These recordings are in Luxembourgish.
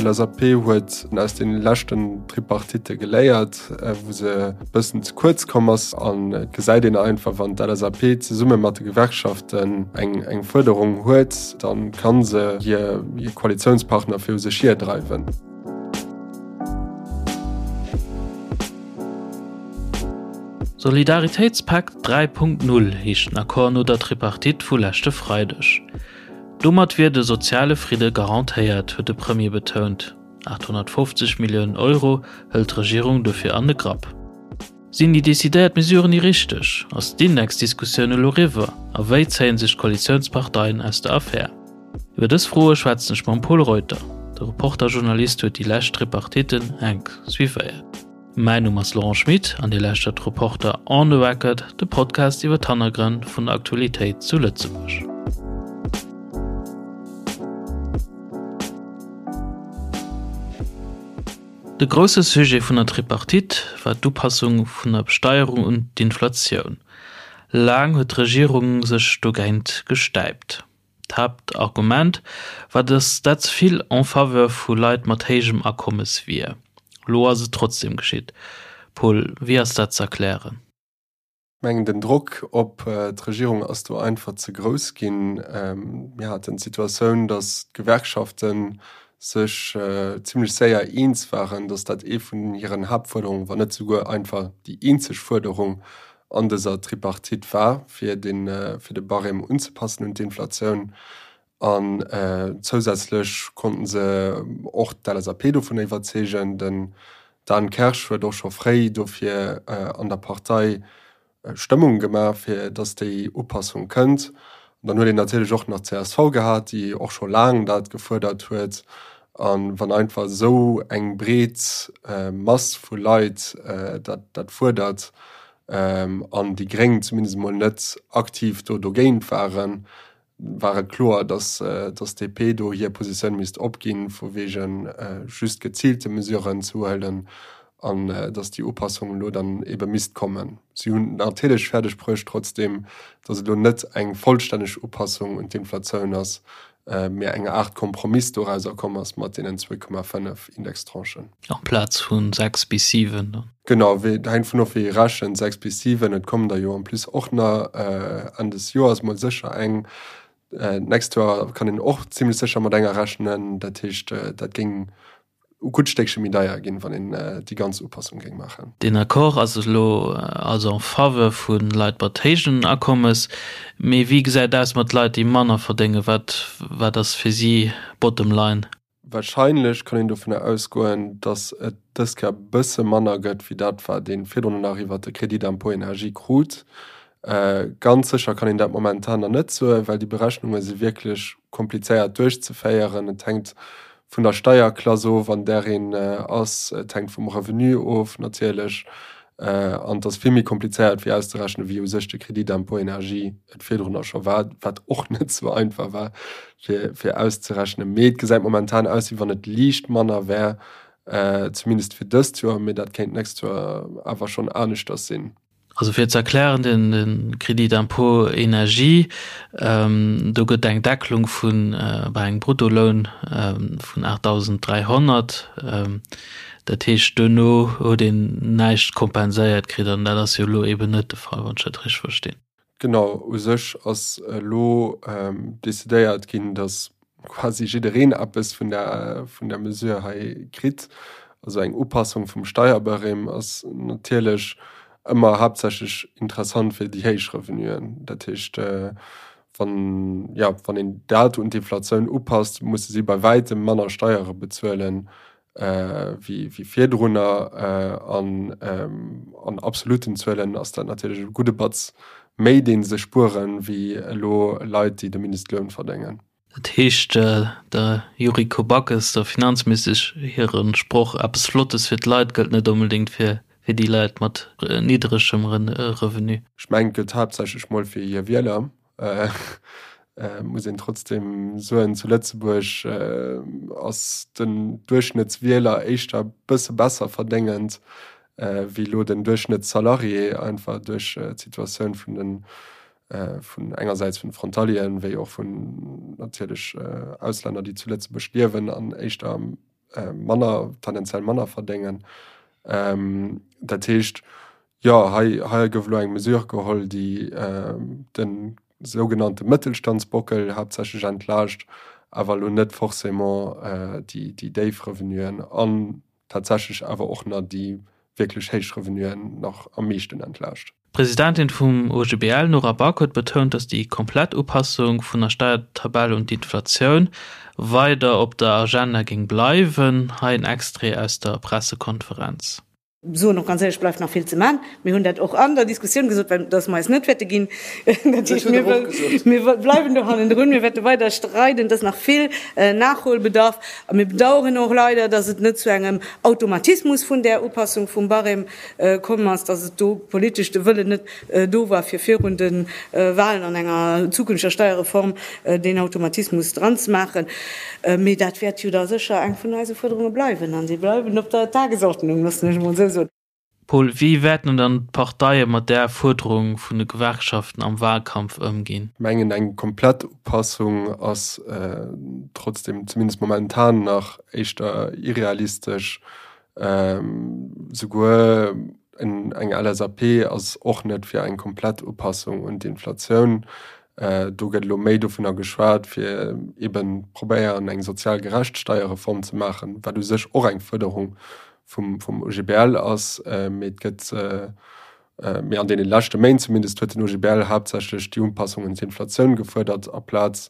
D'LSAP huet aus de leschten Tripartitte geléiert, wou se e bëssen ze kuerz komm ass. An et gesäit een einfach, wann d'LSAP zesumme mat de Gewerkschaften eng Fuerderung huet, da ka se hir Koalitiounspartner viru sech hierdreiwen. Solidaritéitspakt 3.0 heescht den Accord no der Tripartite vu leschte Freideg. Domat wier de soziale Fridde garantéiert, huet de Premier betount. 850 Milliounen Euro hëlt d'Regierung dofir an de Grapp. Sinn déi decidéiert Mesuren déi richteg? Ass d'Indexdiskussioun elo eriwwer? A wéi zéien sech d'Koalitiounsparteien aus der Affär? Iwwer dës Froe schwätzen ech mam Pol Reuter. De Reporter-Journalist huet déi lescht Tripartitten enk suivéiert. Mäin Numm ass Laurent Schmit an Dir lauschtert Reporter on the Record, de Podcast iwwer d'Hannergrënn vun der Aktualitéit zu Lëtzebuerg. De grousse Sujet vun der Tripartite war d'Upassung vun der Besteierung un d'Inflatioun. Laang huet d'Regierung sech dogéint gestäipt. D'Haaptargument war, datt dat ze vill en faveur vu Leit mat héijem Akommes wier. Lo ass et trotzdeem geschitt. Paul, wéi ass dat ze erklären? Ech mengen, den Drock op d'Regierung ass do einfach ze grouss ginn. Mir haten d'Situatioun, datt d'Gewerkschafte sech zimlech séier eens waren, datt dat ee vun hiren Haaptfuerderungen, wann net souguer einfach déi eenzeg Fuerderung an dëser Tripartite war, fir de fir de Barème unzepassen un d'Inflatioun. An zousätzlech konnten se och d'LSAP dovun iwwerzeegen. Den Dan Kersch huet och scho fréi dofir an der Partei Stëmmung gemaach, fir datt déi Upassung kënnt. An dann huet een natierlech och nach d'CSV gehat, déi och scho laang dat gefuerdert huet. A wann einfach esou eng breet Mass vu Leit dat fuerdert an déi Gréng zumindest emol net aktiv do dogéint waren, war et kloer, datt d'DP do hir Positioun misst opginn, vu wege just geziilte Mesuren ze huelen an datt déi Upassung elo dann ebe misst kommen. Si hunn natierlech fäerdeg bruecht trotzdeem, datt et elo net eng vollstänneg Upassung un d'Inflatioun ass, mee eng Aart Kompromiss dorauser komm ass mat deenen 2,5 Indextranchen. Amplaz vu 6 bis 7 dann? Genau, hänkt vun of wéi ee rechent, 6 bis 7. Et kommen der jo en plus och nach Enn des Joers mol sécher eng. D'nächst Joer kann een och zimlech sécher mat enger rechnen. Dat heescht, dat géing e gutt Stéckche méi deier ginn, wann een déi ganz Upassung géing maachen. Deen Accord ass elo also en faveur vu Leit mat héijen Akommes. Mee wéi gesäit et aus mat Leit, déi manner verdéngen? Wat wat ass fir si bottom line? Warscheinlech kann een dovunner ausgoen, datt et dës Kéier e bësse manner gëtt wéi dat, wat ee virdrun nach iwwert de Crédit d'impôt énergie krut. Ganz sécher kann een dat momentan nach net soen, well déi Berechnunge si wierklech komplizéiert duerchzeféieren. Et hänkt vun der Steierklass of, an där een ass. Et hänkt vum Revenu of natierlech. An et ass vill méi komplizéiert fir auszerechnen, wéi u sech de Crédit d'impôt énergie et virdrunner scho war, wat och net sou einfach war fir, fir auszerechnen. Mee et gesäit momentan aus, wéi wann et liicht manner wär, zumindest fir dëst Joer. Mee dat kéint d'nächst Joer awer schonn aneschters sinn. Also fir ze erklären, den Crédit d'impôt énergie, do gëtt eng Deckelung vu bei engem Bruttoloun vun 8.300. Dat heescht, duerno huet een näischt kompenséiert kritt an dat ass jo elo eeben net de Fall, wann ech dat richteg verstinn. Genau, u sech ass elo decidéiert ginn, datt quasi jiddereen eppes vun der, vun der Mesure hei kritt. Also eng Upassung vum Steierbarème ass natierlech ëmmer haaptsächlech interessant fir déi héich Revenuen. Dat heescht, wann, jo, wann een dat un d'Inflatioun upasst, musse si bei wäitem manner Steiere bezuelen wéi, wéi virdrunner. An an absoluten Zuelen ass dat natierlech e gudde Batz méi, dee se spueren, wéi elo Leit, déi de Mindestloun verdéngen. Dat heescht, der Yuriko Backes, der Finanzministesch hire Sproch eppes Flottes fir d'Leit gëllt net onbedéngt fir déi Leit mat niddregem Revenu. Ech mengen, et gëllt haaptsächlech mol fir hir Wieler. Muss een trotzdeem soen, zu Lëtzebuerg ass den Duerchschnëttswieler éischter e bësse besser verdéngend wéi elo den Duerchschnëttssalarié, einfach duerch d'Situatioun vun den vun engersäits vun Frontalieren, wéi och vun natierlech Auslänner, déi zu Lëtzebuerg liewen an éischter am. manner, tendenziell manner verdéngen. Dat heescht, jo, hei, hei gouf elo eng Mesure geholl, déi de sougenannte Mëttelstandsbockel haaptsächlech entlaascht, awer elo net forcément déi, déi déif Revenuen an tatsächlech awer och nach déi wierklech héich Revenuen nach am meeschten entlaascht. D'Presidentin vum OGBL, Nora Back, huet betount, datt déi komplett Upassung vun der Steiertabell un d'Inflatioun weider op der Agenda géing bleiwen. Hei en Extrait aus der Pressekonferenz. Soen och ganz éierlech, bleift nach vill ze man. Mir hunn dat och an der Diskussioun gesot, well dass mer eis net wäerte ginn. Dat heescht, mir wëll, mir bleiwen do hannendrun, mir wäerte weider streiden. Et ass nach vill Nachholbedarf. A mir bedauern och leider, dass et net zu engem Automatismus vun där Upassung vum Barème komm ass, dass et do politesch de Wëllen net do war, fir virun de Wahlen an enger zukünfteger Steierreform deen Automatismus dran ze maachen. Mee dat wäert jo da sécher eng vun eise Fuerderunge bleiwen a si bleiwen op der Tagesordnung, loossen ech emol esou soen. Paul, wéi wäerten dann d'Parteie mat där Fuerderung vun de Gewerkschaften am Wahlkampf ëmginn? Mengen eng komplett Upassung ass trotzdem, zumindest momentan nach, éischter irrealistesch. Souguer eng LSAP ass och net fir eng komplett Upassung un d'Inflatioun. Do gëtt elo méi dovunner geschwat, fir eben probéieren eng sozial gerecht Steierreform ze maachen, wat u sech och eng Fuerderung vum vum OGBL ass. Mee et gëtt, mee an deene leschte Méint zumindest huet den OGBL haaptsächlech déi Upassung un d'Inflatioun gefuerdert aplaz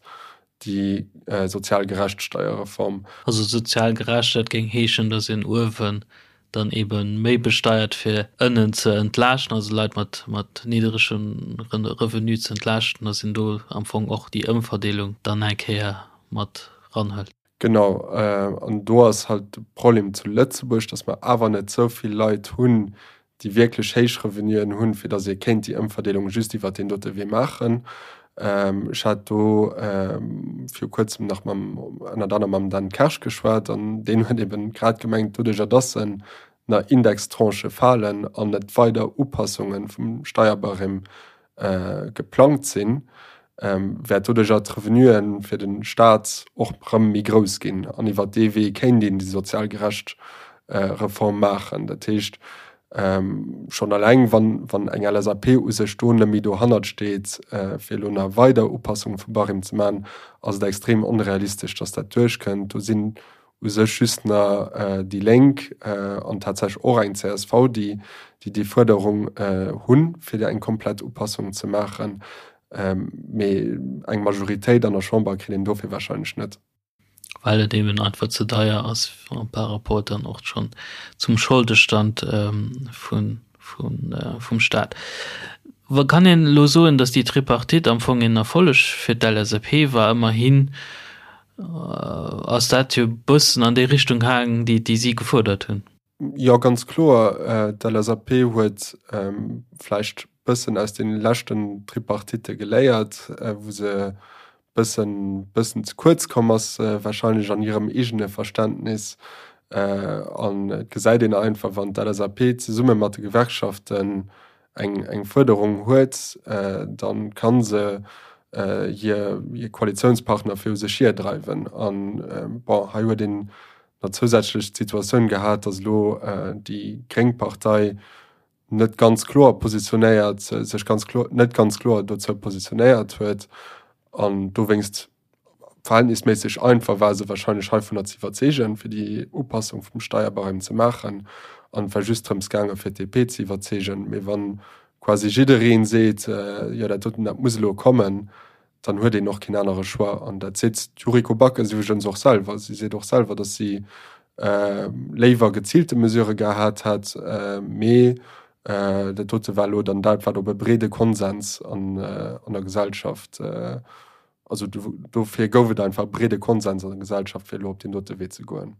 déi sozial gerecht Steierreform. Also sozial gerecht, dat géing heeschen, datt een uewen dann ebe méi besteiert fir ënnen ze entlaaschten, also Leit mat mat nidderegem Revenu ze entlaaschten, datt een do am Fong och déi Ëmverdeelung dann eng Kéier mat ranhëlt. Genau, an do ass halt de Problem zu Lëtzebuerg, datt mer awer net esou vill Leit hunn, déi wierklech héich Revenuen hunn, fir datt ee kéint déi Ëmverdeelung just iwwert deen dote Wee maachen. Ech hat do viru Kuerzem nach mam, ënnert anerem mam Dan Kersch geschwat an deen huet eben grad gemengt, doduercher datt en na Indextranchë falen an net weider Upassunge vum Steierbarème geplangt sinn, wäert doduercher d'Revenue fir de Staat och erëm méi grouss ginn. An iwwer dee Wee kéint een déi sozial gerecht Reform maachen. Dat heescht, schonn eleng wann, wann eng LSAP u sech do net méi dohannert steet, fir elo nach weider Upassunge vum Barème ze maachen, ass et extrem onrealistesch, datt dat duerchkënnt. Do sinn u sech just nach déi Lénk an tatsächlech och eng csv, déi déi Fuerderung hunn, fir eng komplett Upassung ze maachen. Mee eng Majoritéit an der Chamber kritt een dofir warscheinlech net. Well et eben einfach ze deier ass par rapport dann och schonn zum Scholdestand vun vum Staat. Kann een elo soen, datt déi Tripartite am Fong een Erfolleg fir d'LSAP war? Ëmmerhin ass dat jo e bëssen an déi Richtung gaangen, déi déi si gefuerdert hunn. Jo, ganz kloer. D'LSAP huet vläicht bëssen aus deene leschten Tripartitte geléiert, wou se bëssen bëssen ze kuerz komm ass warscheinlech an hirem eegene Verständnis. An et gesäit een einfach, wann d'LSAP zesumme mat de Gewerkschaften eng eng Fuerderung huet, da ka se hir hir Koalitiounspartner viru sech hirdreiwen. An bon, hei huet een nach zousätzlech d'Situatioun gehat, datt elo déi gréng Partei net ganz kloer positionéiert, sech ganz kloer, net ganz kloer dozou positionéiert huet an dowéinst verhältnisméisseg einfach war se wahrscheinlech heivunner ze iwwerzeegen, fir déi Upassung vum Steierbarème ze maachen. An et war just drëms gaangen, fir d'DP ze iwwerzeegen. Mee wann quasi jidderee seet, jo dat doten, dat muss elo kommen, dann huet een och keen anere Choix. An dat seet d'Yuriko Backes iwwregens och selwer. Si seet och selwer, datt si léiwer geziilte Mesurë gehat hätt, mee dat dote war elo dann dat, wat op e breede Konsens an der Gesellschaft, also dofir gouf et einfach e breede Konsens an der Gesellschaft, fir elo op deen dote Wee ze goen.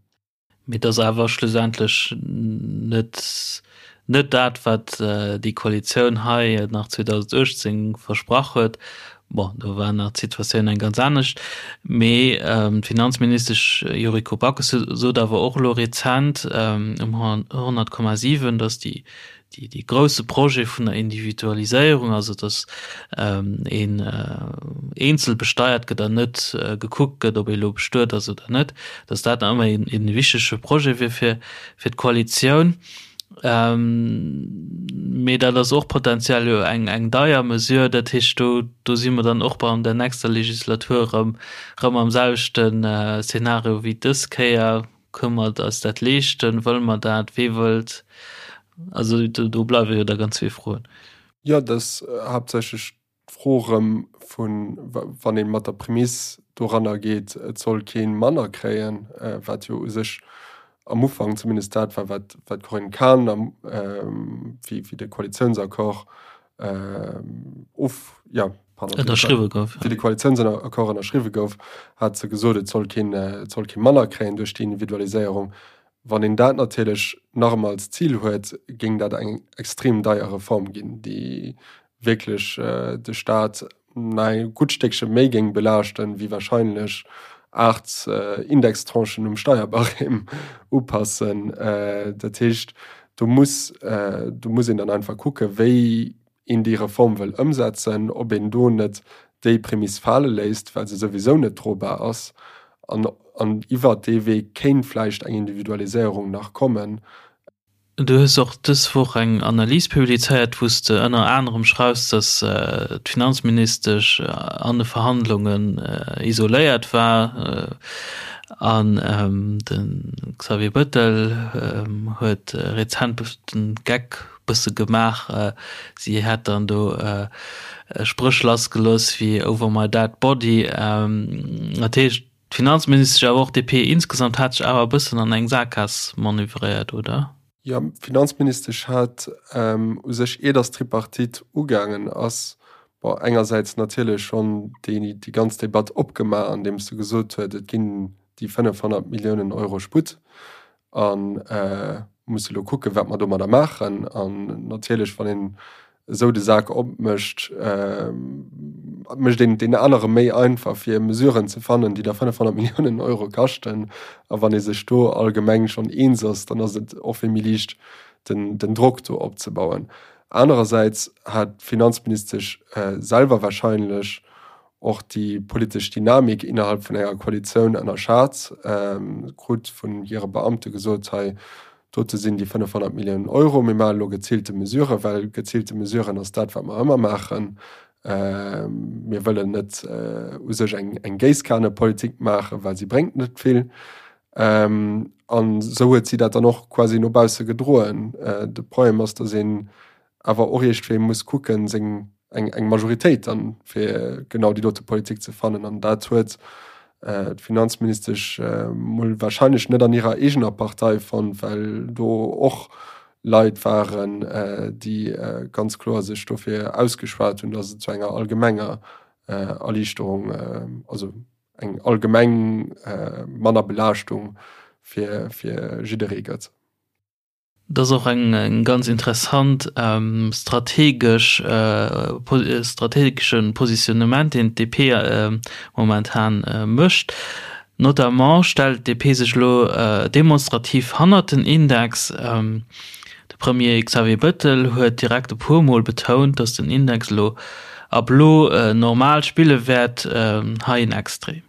Mee et ass awer schlussendlech net net dat, wat déi Koalitioun hei nach 2018 versprach huet. Bon, do war nach d'Situatioun eng ganz anescht. Mee d'Finanzministesch Yuriko Backes sot awer och elo rezent um 100,7, datt déi. Dee grousse Projet vun der Individualiséierung, also datt een eenzel besteiert gëtt an net gekuckt gëtt, ob ee elo bestuet ass oder net, datt dat nach ëmmer ee wichtege Projet wier fir d'Koalitioun. Mee dat ass och potenziell jo eng deier Mesure. Dat heescht, do do si mer dann och bei an der nächster Legislatur erëm erëm am selwechten Szenario wéi dës Kéier. Kënne mer eis dat leeschten? Wëlle mer dat? Wee wëllt? Also do do bleiwe jo da ganz vill Froen. Jo, dat ass haaptsächlech d'Fro erëm vun, wann ee mat der Prämiss doranner geet, et soll kee manner kréien, wat jo u sech am Ufank zumindest dat war, wat d'Corinne Cahen am, wéi de Koalitiounsaccord of, jo, pardon, ënnerschriwwe gouf, wéi de Koalitiounsaccord ënnerschriwwe gouf, hat se gesot, et soll keen, et soll kee manner kréien duerch déi Individualiséierung. Wann een dat natierlech nach ëmmer als Zil huet, géing dat eng extrem deier Reform ginn, déi wierklech de Staat nach e gutt Stéckche méi géing belaaschten, wéi wahrscheinlech 8 Indextranchen um Steierbarème upassen. Dat heescht, do muss, do muss een dann einfach kucken, wéi een déi Reform wëll ëmsetzen, ob een do net déi Prämiss fale léisst, well se souwisou net drobar ass, an, an iwwert dee Wee kéint vläicht eng Individualiséierung nach kommen. Du hues och dës Woch eng Analys publizéiert, wou s de ënner anerem schreifs, datt d'Finanzministesch an de Verhandlungen isoléiert war an de Xavier Bettel huet rezent de Geck bësse gemaach, si hätt dann do Spréch lassgelooss wéi over my dead body. Dat heescht, D'Finanzministesch, awer och d'DP insgesamt hat sech awer e bëssen an eng Saakgaass manövréiert, oder? Jo, d'Finanzministesch hat u sech, ier datt d'Tripartite ugaangen ass, bon, engersäits natierlech schonn déi ganz Debatt opgemaach, andeems se gesot huet, et ginn déi 500 Milliounen Euro Sputt a musse elo kucken, wat mer domadder maachen. An natierlech, wann een esou de Sak opmécht, mécht een et deenen anere méi einfach, fir Mesuren ze fannen, déi da 500 Milliounen Euro kaschten. A wann ee sech do allgemeng schonn eens ass, dann ass et och vill méi liicht, den, den Drock do opzebauen. Anerersäits hat d'Finanzministesch selwer wahrscheinlech och déi politesch Dynamik innerhalb vun enger Koalitioun ënnerschat, krut vun hire Beamte gesot, hei dote sinn déi 500 Milliounen Euro, mir maache elo geziilte Mesuren, well geziilte Mesuren ass dat, wat mer ëmmer maachen. Mir wëllen net u sech eng Géisskanepolitik maachen, well si bréngt net vill. An esou huet si dat dann och quasi no bausse gedroen. De Problem ass, datt een awer och iergendwéi muss kucken, seng eng eng Majoritéit dann fir genau déi dote Politik ze fannen. An dat huet d'Finanzministesch mol wahrscheinlech net an hirer eegener Partei fonnt, well do och Leit waren, déi ganz kloer sech dofir ausgeschwat hunn, datt et zu enger allgemenger Erliichterung, also eng allgemeng manner Belaaschtung fir jidderee gëtt. Dat ass och eng ganz interessant strategesch, strategesche Positionnement, deen d'DP momentan mécht. Notamment stellt d'DP sech elo demonstrativ hannert den Index. De Premier Xavier Bettel huet direkt e puer Mol betount, datt den Index elo ab elo normal spille wäert. Hei en Extrait.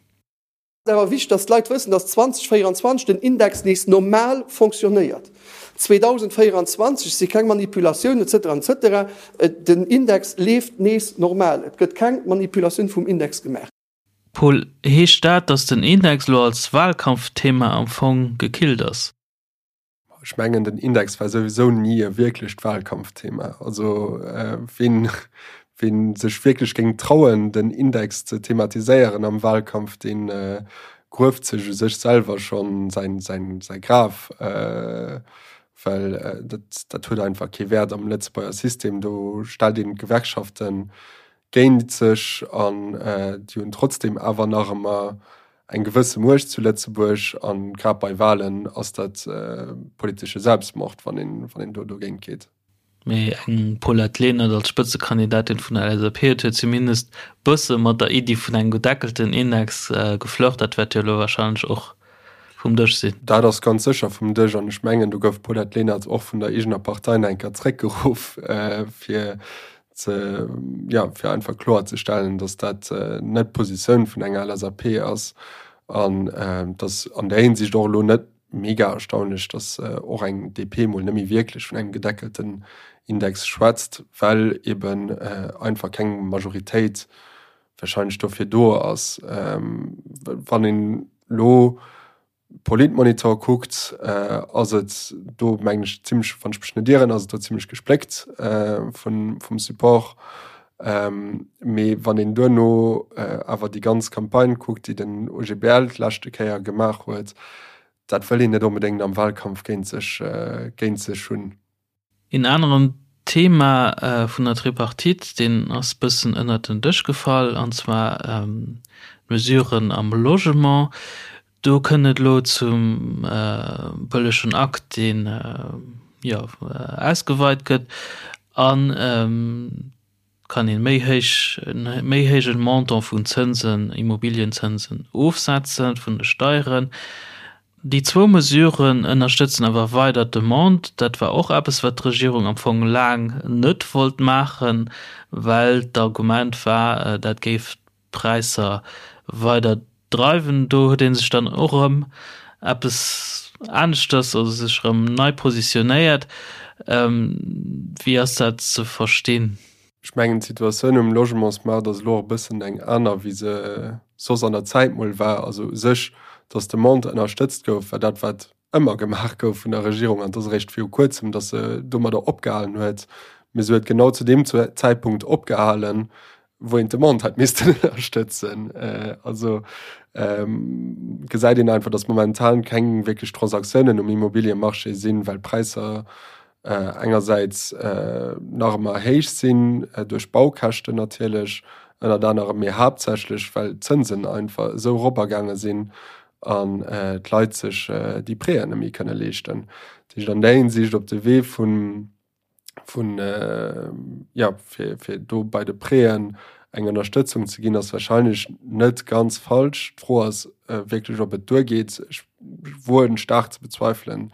Et ass awer wichteg, dass d'Leit wëssen, dass 2024 den Index nees normal fonctionnéiert. 2024 si keng Manipulatiounen et cetera, et cetera. Den Index leeft nees normal. Et gëtt keng Manipulatioun vum Index gemaach. Paul, heescht dat, dass den Index elo als Wahlkampfthema am Fong gekillt ass? Ech mengen den Index war souwisou ni e wierklecht Wahlkampfthema. Also ween, ween sech wierklech géing trauen den Index ze thematiséieren am Wahlkampf, dee grueft sech u sech selwer schonn säin, säin, säi Graf, well dat, dat huet einfach kee Wäert am Lëtzebuerger System. Do stellt een d'Gewerkschaften géint sech an déi hunn trotzdem awer nach ëmmer eng gewësse Muecht zu Lëtzebuerg an grad bei Wahlen ass dat politesche Selbstmord, wann een, wann een do dogéint geet. Mee eng Paulette Lenert als Spëtzekandidatin vun der LSAP huet jo zumindest bësse mat der Iddi vun engem gedeckelten Index geflirt. Dat wäert jo elo warscheinlech och. Vum Dësch sinn. Dat ass ganz sécher vum Dësch an ech mengen, do gouf d'Paulette Lenert och vun der eegener Partei nach eng Kéier zréckgeruff, fir ze, jo, fir einfach kloerzestellen, datt dat net d'Positioun vun enger LSAP ass an datt an där Hinsicht och elo net mega erstaunlech, datt och eng DP mol net méi wierklech vun engem gedeckelten Index schwätzt, well eben einfach keng Majoritéit wahrscheinlech dofir do ass. Wann een elo Politmonitor kuckt, ass et do mengen ech zimmlech, wann ech mech net ieren, ass et do zimmlech gespléckt vun vum Support. Mee wann een duerno awer déi ganz Campagne kuckt, déi den OGBL d'leschte Kéier gemaach huet, dat wëll een net onbedéngt am Wahlkampf géint sech géint sech hunn. Een aneren Thema vun der Tripartite, deen ass bëssen ënnert den Dësch gefall, an zwar d'Mesuren am Logement. Do kënnt et elo zum bëllegen Akt, deen, jo, ausgeweit gëtt an kann een méi héich, en méi héijen Montant vun Zënsen, Immobilienzënsen ofsetzen vun de Steieren. Déi zwou Mesuren ënnerstëtzen awer weider d'Demande. Dat war och eppes, wat d'Regierung am Fong laang net wollt maachen, well d'Argument war, dat géif d'Präisser weider dreiwen. Do huet ee sech dann och erëm eppes aneschters, also sech erëm nei positionéiert. Wéi ass dat ze verstinn? Ech mengen, d'Situatioun um Logementsmaart ass elo och e bëssen eng aner, wéi se soss an der Zäit mol war. Also u sech, datt d'Demande ënnerstëtzt gouf, war dat, wat ëmmer gemaach gouf vun der Regierung. An et ass eréischt viru Kuerzem, datt se domadder opgehalen huet. Mee se huet genau zu deem Zäitpunkt opgehalen, wou een d'Demande hätt missten ënnerstëtzen. Also gesäit een einfach, datt momentan keng wierklech Transaktiounen um Immobiliemarché sinn, well d'Präisser engersäits nach ëmmer héich sinn, duerch d'Baukäschten natierlech ënnert anerem, mee haaptsächlech well d'Zënsen einfach esou eropagaange sinn an d'Leit sech déi Prêten net méi kënne leeschten. Dat heescht an där Hinsicht op de Wee vun vun jo fir fir do bei de Prêten eng Ënnerstëtzung ze ginn, ass wahrscheinlech net ganz falsch. D'Fro ass wierklech, ob et duergeet. Ech woen staark ze bezweifelen,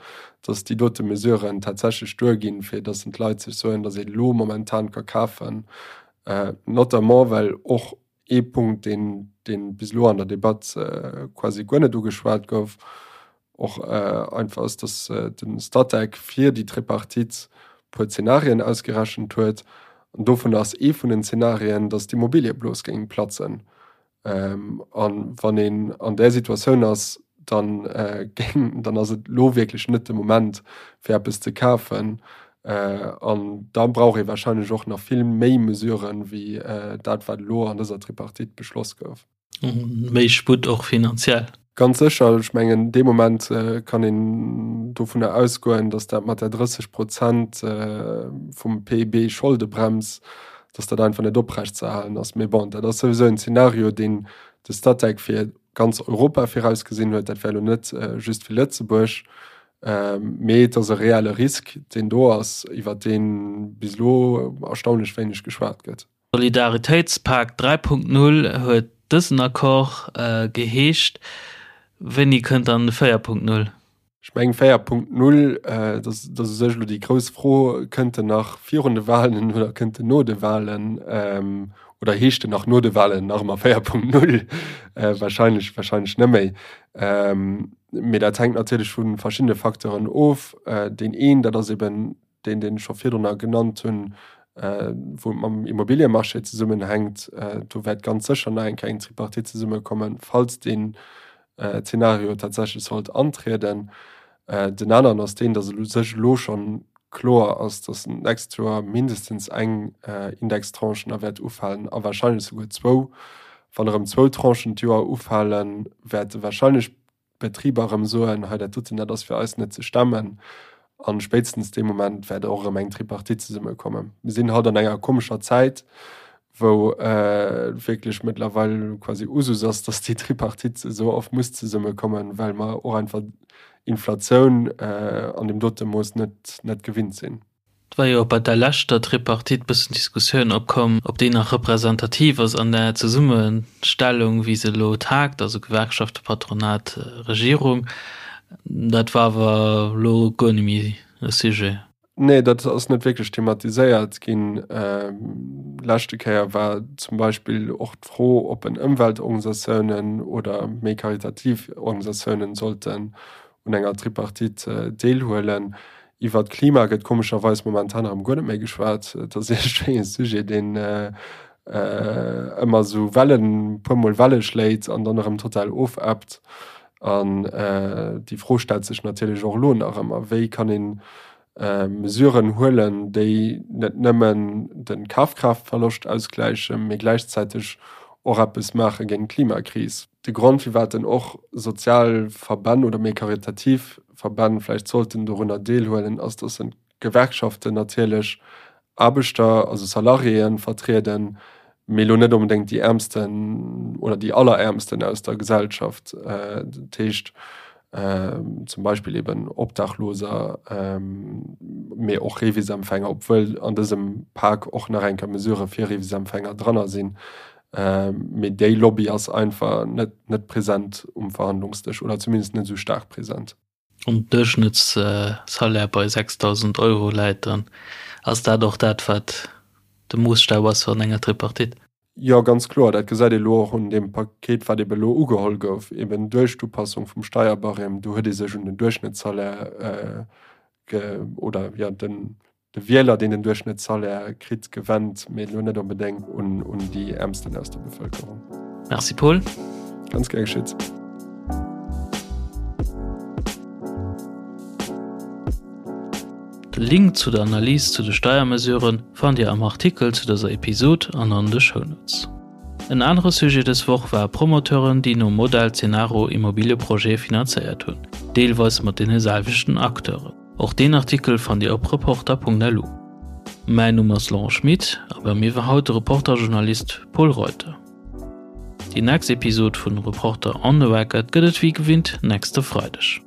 datt déi dote Mesuren tatsächlech duerginn, fir datt d'Leit sech soen, datt ee lo momentan ka kafen, notamment well och ee Punkt, deen, deen bis elo an der Debatt quasi guer net ugeschwat gouf, och einfach ass, dass de Statec fir déi Tripartite e puer Zenarien ausgerechent huet. An dovun ass ee vun den Zenarien, dass d'Immobiliëblos géing platzen. A wann een an där Situatioun ass, dann géing, dann ass et elo wierklech net de Moment, fir eppes ze kafen. An da brauch ee warscheinlech och nach vill méi Mesuren, wéi dat, wat elo an dëser Tripartite beschloss gouf. Méi Sputt och finanziell. Ganz sécher. Ech mengen, dee Moment kann een dovunner ausgoen, datt dat mat der 30 Prozent vum PIB Scholdebrems, datt dat einfach net oprechtzeerhalen ass. Mee bon, dat ass souwisou en Zeenario, deen de Statec fir ganz Europa virausgesinn huet. Dat wär elo net just fir Lëtzebuerg. Mee et ass e reelle Risk, deen do ass, iwwer dee bis elo erstaunlech wéineg geschwat gëtt. Solidaritéitspak 3.0 huet dësen Accord geheescht. Wéini kënnt dann de 4.0? Ech mengen 4.0, dat ass u sech elo déi grouss Fro, kënnt en nach virun de Wahlen oder kënnt en no de Wahlen? Oder heescht en nach no de Wahlen nach ëmmer 4.0? Wahrscheinlech, wahrscheinlech net méi. Mee dat hänkt natierlech vu verschiddene Facteuren of. Deen een, dat ass eben deen, deen ech scho virdrunner genannt hunn, wou et mam Immobiliemarché zesummenhänkt. Do wäert ganz sécher nach eng Kéier eng Tripartite zesummekommen, falls deen Zeenario tatsächlech sollt antrieden. Den aneren ass deen, datt u sech elo schonn kloer ass, datt d'nächst Joer mindestens eng Indextranche nach wäert ufalen a wahrscheinlech souguer zwou. Wann erëm zwou Tranchen d'Joer ufalen, wäerte wahrscheinlech d'Betriber erëm soen, hei dat doten, dat ass fir eis net ze stemmen. A spéitstens dee Moment wäert och erëm eng Tripartite zesummekommen. Mir sinn haut an enger komescher Zäit, wou wierklech mëttlerweil quasi Usus ass, datt déi Tripartite esou oft muss zesummekommen, well mer och einfach Inflatioun an deem dote Mooss net, net gewinnt sinn. War jo och bei der leschter Tripartite bëssen Diskussioun opkomm, ob déi nach representativ ass an der Zesummestellung, wéi se elo tagt, also Gewerkschaften, Patronat, Regierung. Dat war awer elo guer net méi e Sujet. Nee, dat ass net wierklech thematiséiert ginn. Leschte Kéier war zum Beispill och d'Fro, ob en Ëmweltorganisatiounen oder méi karitativ Organisatiounen sollten un enger Tripartite deelhuelen. Iwwer d'Klima gëtt komescherweis momentan erëm guer net méi geschwat. Et ass iergendwéi e Sujet, deen ëmmer esou Wellen, puer mol Welle schléit an dann erëm total ofebbt. An déi Fro stellt sech natierlech och elo nach ëmmer, Wéi kann ee Mesuren huelen, déi net nëmmen de Kafkraaftverloscht ausgläichen, mee gläichzäiteg och eppes maache géint d'Klimakris? De Grond, firwat dann och sozial Verbänn oder méi karitativ Verbänn vläicht sollten dorunner deelhuelen, ass, dass d'Gewerkschaften natierlech Aarbechter, also Salariéen, vertrieden, mee elo net onbedéngt déi Äermsten oder déi Alleräermsten aus der Gesellschaft. Dat heescht zum Beispill eben Obdachloser, mee och Revisempfänger, obwuel an dësem Pak och nach eng Kéier Mesurë fir Revisempfänger dranner sinn. Mee déi Lobby ass einfach net net present um Verhandlungsdësch oder zumindest net esou staark present. Wann den Duerchschnëttssalaire bei 6.000 Euro läit, dann ass dat och dat, wat de Moosstaf ass an enger Tripartite. Jo, ganz kloer. Dat gesäit ee elo och un deem Paket, wat ebe elo ugeholl gouf, eben duerch d'Upassung vum Steierbarème. Do huet ee sech un den Duerchschnëttssalaire ge oder jo den de Wieler, deen den Duerchschnëttssalaire kritt, gewennt, mee elo net onbedéngt un un déi Äermsten aus der Bevëlkerung. Merci Paul. Ganz gär geschitt. De Link zu der Analys zu de Steiermesuren fannt Dir am Artikel zu dëser Episod an an de Shownotes. En anere Sujet dës Woch war Promoteuren, déi nom Modell Cenaro Immobilieprojete finanzéiert hunn, deelweis mat deene selwechten Acteuren. Och deen Artikel fannt Dir op Reporter.lu. Mäin Numm ass Laurent Schmit a bei mir war haut de Reporter-Journalist Pol Reuter. Déi nächst Episod vun Reporter on the Record gëtt et wéi gewinnt nächste Freideg.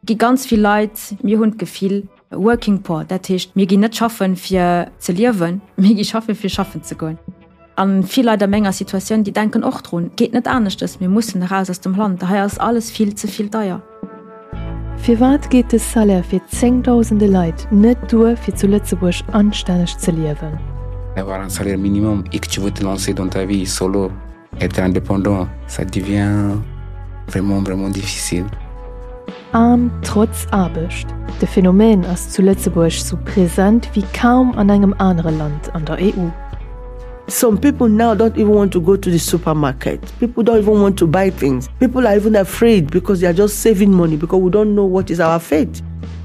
Gi ganz vill Leit, mir hunn d'Gefill, Working poor, dat heescht, mir ginn net schaffen, fir ze liewen, mir gi schaffen, fir schaffen ze goen. A vill Leit a menger Situatioun, déi denken och drun, et geet net aneschtes, mir mussen eraus aus dem Land, hei ass alles vill ze vill deier. Firwat geet de Salaire fir zéngdausende Leit net duer fir zu Lëtzebuerg anstänneg ze liewen? Avoir un salaire minimum et que tu veux te lancer dans ta vie solo, être indépendant, ça devient vraiment, vraiment difficile. Aarm trotz Aarbecht, de Phänomen ass zu Lëtzebuerg sou present wéi kaum an engem anere Land an der EU. Some people now don't even want to go to the supermarket. People don't even want to buy things. People are even afraid because they are just saving money because we don't know what is our fate.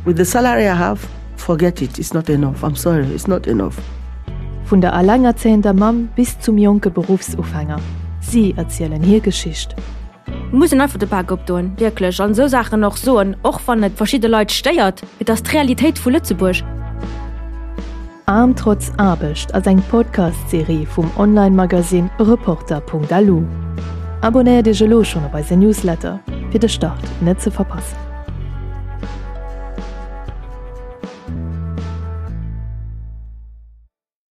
With the salary I have, forget it, it's not enough. I'm sorry, it's not enough. Vun der alengerzéiender Mamm bis zum jonke Beruffsufänger, si erzielen hir Geschicht. Et muss een einfach de Bak opdoen, wierklech, an esou Saachen och soen, och wann et verschidde Leit stéiert. Et ass d'Realitéit vu Lëtzebuerg. Aarm trotz Aarbecht ass eng Podcast-Serie vum Online-Magasinn Reporter.lu. Abonnéiert Iech elo schonn op eise Newsletter, fir de Start net ze verpassen.